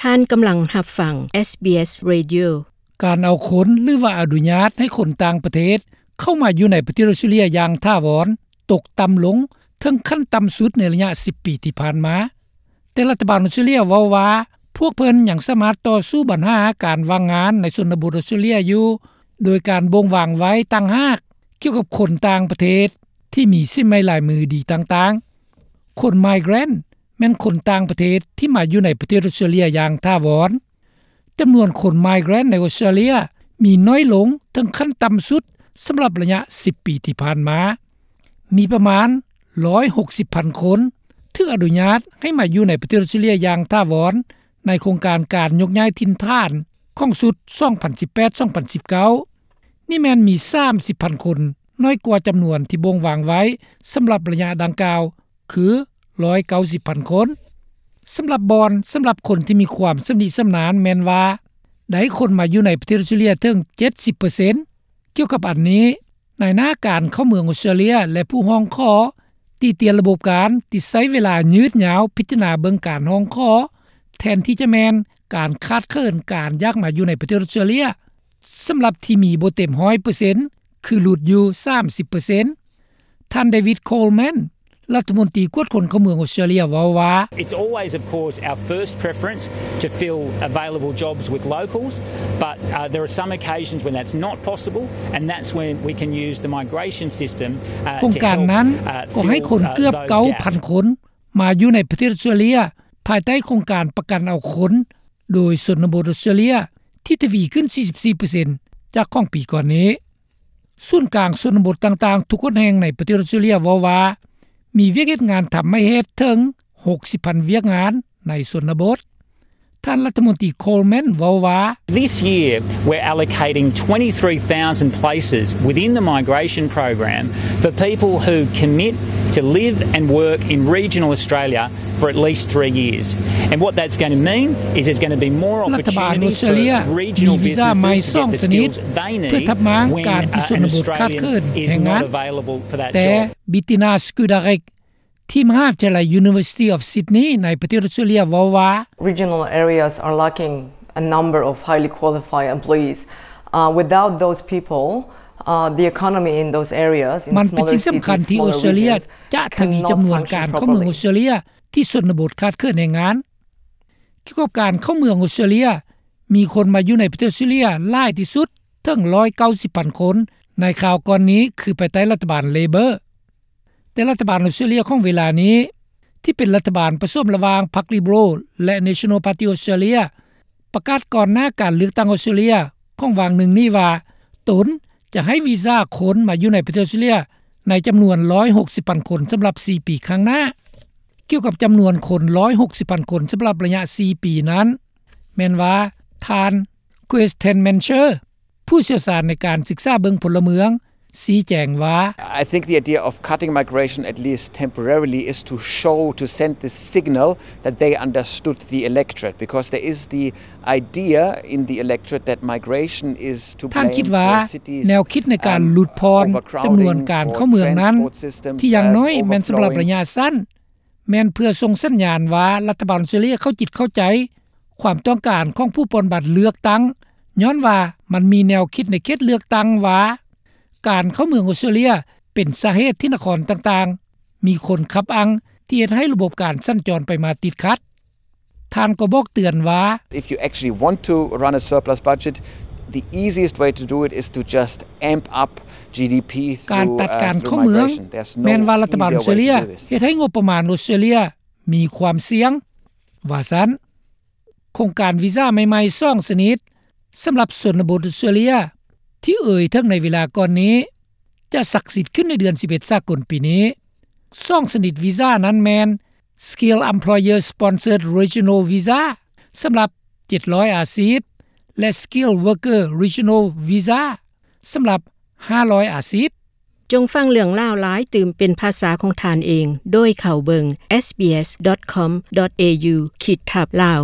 ທ່ານກຳລັງຮັບຟັງ ເອສບີເອສ Radio. ການເອົາຄົນ ຫຼືວ່າອະນຸຍາດໃຫ້ຄົນຕ່າງປະເທດ ເຂົ້າມາຢູ່ໃນປະເທດອອສເຕຣເລັຽຢ່າງຖາວອນ ຕົກຕ່ຳລົງເຖິງຂັ້ນຕ່ຳສຸດໃນໄລຍະສິບປີທີ່ຜ່ານມາ. ແຕ່ລັດຖະບານອອສເຕຣເລັຽເວົ້າວ່າ ພວກເພິ່ນຍັງສາມາດຕໍ່ສູ້ບັນຫາການວ່າງງານໃນຊົນນະບົດອອສເຕຣເລັຽຢູ່ ໂດຍການບົ່ງວາງໄວ້ຕ່າງຫາກກ່ຽວກັບຄົນຕ່າງປະເທດທີ່ມີສີໄມ້ລາຍມືດີຕ່າງໆ. ຄົນ migrant ແມ່ນຄົນຕ່າງປະເທດທີ່ມາຢູ່ໃນປະເທດອອສເຕຣເລັຽຢ່າງຖາວອນ. ຈຳນວນຄົນ migrant ໃນອອສເຕຣເລັຽມີໜ້ອຍລົງເຖິງຂັ້ນຕ່ຳສຸດສຳລັບໄລຍະສິບປີທີ່ຜ່ານມາ. ມີປະມານຮ້ອຍຫົກສິບພັນຄົນຖືກອະນຸຍາດໃຫ້ມາຢູ່ໃນປະເທດອອສເຕຣເລັຽຢ່າງຖາວອນ ໃນໂຄງການການຍົກຍ້າຍຖິ່ນຖານຂອງຊຸດສອງພັນສິບແປດ ສອງພັນສິບເກົ້າ. ນີ້ແມ່ນມີສາມສິບພັນຄົນ ໜ້ອຍກວ່າຈຳນວນທີ່ບົ່ງວາງໄວ້ສຳລັບໄລຍະດັ່ງກ່າວ ຄືຮ້ອຍເກົ້າສິບພັນຄົນ. ສຳລັບບ່ອນ ສຳລັບຄົນທີ່ມີຄວາມຊຳນິຊຳນານແມ່ນວ່າ ໄດ້ຄົນມາຢູ່ໃນປະເທດອອສເຕຣເລັຽເຖິງເຈັດສິບເປີເຊັນ. ກ່ຽວກັບອັນນີ້, ນາຍໜ້າການເຂົ້າເມືອງອອສເຕຣເລັຽ ແລະ ຜູ້ຮ້ອງຂໍຕິຕຽນລະບົບການທີ່ໃຊ້ເວລາຍືດຍາວພິຈາລະນາເບິ່ງການຮ້ອງຂໍ ແທນທີ່ຈະແມ່ນການຂາດເຂີນການຢາກມາຢູ່ໃນປະເທດອອສເຕຣເລັຽ ສຳລັບທີ່ມີບໍ່ເຕັມຮ້ອຍເປີເຊັນ ຄືຫຼຸດຢູ່ສາມສິບເປີເຊັນ. ທ່ານ David Coleman ລັດຖະມົນຕີກວດຄົນເຂົ້າເມືອງອອສເຕຣເລັຽເວົ້າວ່າ It's always, of course, our first preference to fill available jobs with locals, but, uh, there are some occasions when that's not possible, and that's when we can use the migration system, uh, ໂຄງການນັ້ນກໍໃຫ້ຄົນເກືອບເກົ້າພັນຄົນມາຢູ່ໃນປະເທດອອສເຕຣເລັຽ ພາຍໃຕ້ໂຄງການປະກັນເອົາຄົນໂດຍຊົນນະບົດອອສເຕຣເລັຽ ທີ່ທະວີຂຶ້ນສີ່ສິບສີ່ເປີເຊັນ ຈາກຂອງປີກ່ອນນີ້. ສູນກາງຊົນນະບົດຕ່າງໆທຸກຫົນແຫ່ງໃນປະເທດອອສເຕຣເລັຽເວົ້າວ່າ ມີວຽກເຮັດງານທຳໃຫ້ເຮັດເຖິງຫົກສິບພັນວຽກງານໃນຊົນນະບົດ. ທ່ານລັດຖະມົນຕີ Coleman ເວົ້າວ່າ This year, we're allocating twenty-three thousand places within the migration program for people who commit to live and work in regional Australia for at least three years. And what that's gonna mean is there's gonna be more opportunities for regional businesses to get the skills they need when, uh, an Australian is not available for that job. ລັດຖະບານອອສເຕຣເລັຽມີວີຊາໃໝ່ສອງຊະນິດ ເພື່ອທັບມ້າງການທີ່ຊົນນະບົດຂາດເຂີນແຮງງານ. ແຕ່ Bettina Skudarek ທີ່ມະຫາວິທະຍາໄລ University of Sydney ໃນປະເທດອອສເຕຣເລັຽເວົ້າວ່າ Regional areas are lacking a number of highly qualified employees. Uh, without those people, uh, the economy in those areas, in smaller cities, smaller regions, cannot function properly. ມັນເປັນສິ່ງສຳຄັນທີ່ອອສເຕຣເລັຽຈະທະວີຈຳນວນການເຂົ້າເມືອງອອສເຕຣເລັຽ ທີ່ຊົນນະບົດຂາດເຂີນແຮງງານ. ກ່ຽວກັບການເຂົ້າເມືອງອອສເຕຣເລັຽ, ມີຄົນມາຢູ່ໃນປະເທດອອສເຕຣເລັຽຫຼາຍທີ່ສຸດເຖິງຮ້ອຍເກົ້າສິບພັນຄົນ ໃນຄາວກ່ອນນີ້ ຄືພາຍໃຕ້ລັດຖະບານ Labor. ແຕ່ລັດຖະບານອອສເຕຣເລັຽຂອງເວລານີ້ ທີ່ເປັນລັດຖະບານປະສົມລະຫວ່າງພັກ Liberal ແລະ National Party Australia ປະກາດກ່ອນໜ້າການເລືອກຕັ້ງອອສເຕຣເລັຽຂອງຫວ່າງໜຶ່ງນີ້ວ່າ ຕົນຈະໃຫ້ວີຊາຄົນມາຢູ່ໃນປະເທດອອສເຕຣເລັຽໃນຈຳນວນຮ້ອຍຫົກສິບພັນຄົນສຳລັບສີ່ປີຂ້າງໜ້າ. ກ່ຽວກັບຈຳນວນຄົນຮ້ອຍຫົກສິບພັນຄົນສຳລັບໄລຍະສີ່ປີນັ້ນ ແມ່ນວ່າທ່ານ Kristen Mancher ຜູ້ຊ່ຽວຊານໃນການສຶກສາເບິ່ງພົນລະເມືອງ ຊີ້ແຈງວ່າ I think the idea of cutting migration, at least temporarily, is to show, to send the signal that they understood the electorate, because there is the idea in the electorate that migration is to blame for cities, um, overcrowding, for transport systems, uh, overflowing, for trains, for cities, uh, overflowing. ທ່ານຄິດວ່າແນວຄິດໃນການຫຼຸດຜ່ອນຈຳນວນການເຂົ້າເມືອງນັ້ນ ທີ່ຢ່າງໜ້ອຍແມ່ນສຳລັບໄລຍະສັ້ນ ແມ່ນເພື່ອສົ່ງສັນຍານວ່າລັດຖະບານອອສເຕຣເລັຽເຂົ້າຈິດເຂົ້າໃຈຄວາມຕ້ອງການຂອງຜູ້ປ່ອນບັດເລືອກຕັ້ງ ຍ້ອນວ່າມັນມີແນວຄິດໃນເຂດເລືອກຕັ້ງວ່າ ການເຂົ້າເມືອງອອສເຕຣເລັຽເປັນສາເຫດທີ່ນະຄອນຕ່າງໆມີຄົນຂັບອັ່ງ ທີ່ເຮັດໃຫ້ລະບົບການສັນຈອນໄປມາຕິດຂັດ. ທ່ານກໍບອກເຕືອນວ່າ If you actually want to run a surplus budget, the easiest way to do it is to just amp up GDP through, uh, through migration. ການຕັດການເຂົ້າເມືອງ ແມ່ນວ່າລັດຖະບານອອສເຕຣເລັຽເຮັດໃຫ້ງົບປະມານອອສເຕຣເລັຽມີຄວາມສ່ຽງ ວ່າຊັ້ນ. ໂຄງການວີຊາໃໝ່ໆສອງຊະນິດ ສຳລັບຊົນນະບົດອອສເຕຣເລັຽ ທີ່ເອີ່ຍເຖິງໃນເວລາກ່ອນນີ້ ຈະສັກສິດຂຶ້ນໃນເດືອນສິບເອັດສາກົນປີນີ້. ສອງຊະນິດວີຊານັ້ນແມ່ນ Skilled Employer Sponsored Regional Visa ສຳລັບເຈັດຮ້ອຍອາຊີບ ແລະ Skilled Worker Regional Visa ສຳລັບຫ້າຮ້ອຍອາຊີບ. ຈົ່ງຟັງເລື່ອງລາວຫຼາຍຕື່ມເປັນພາສາຂອງທ່ານເອງ ໂດຍເຂົ້າເບິ່ງ SBS.com.au ຂີດທັບ Lao.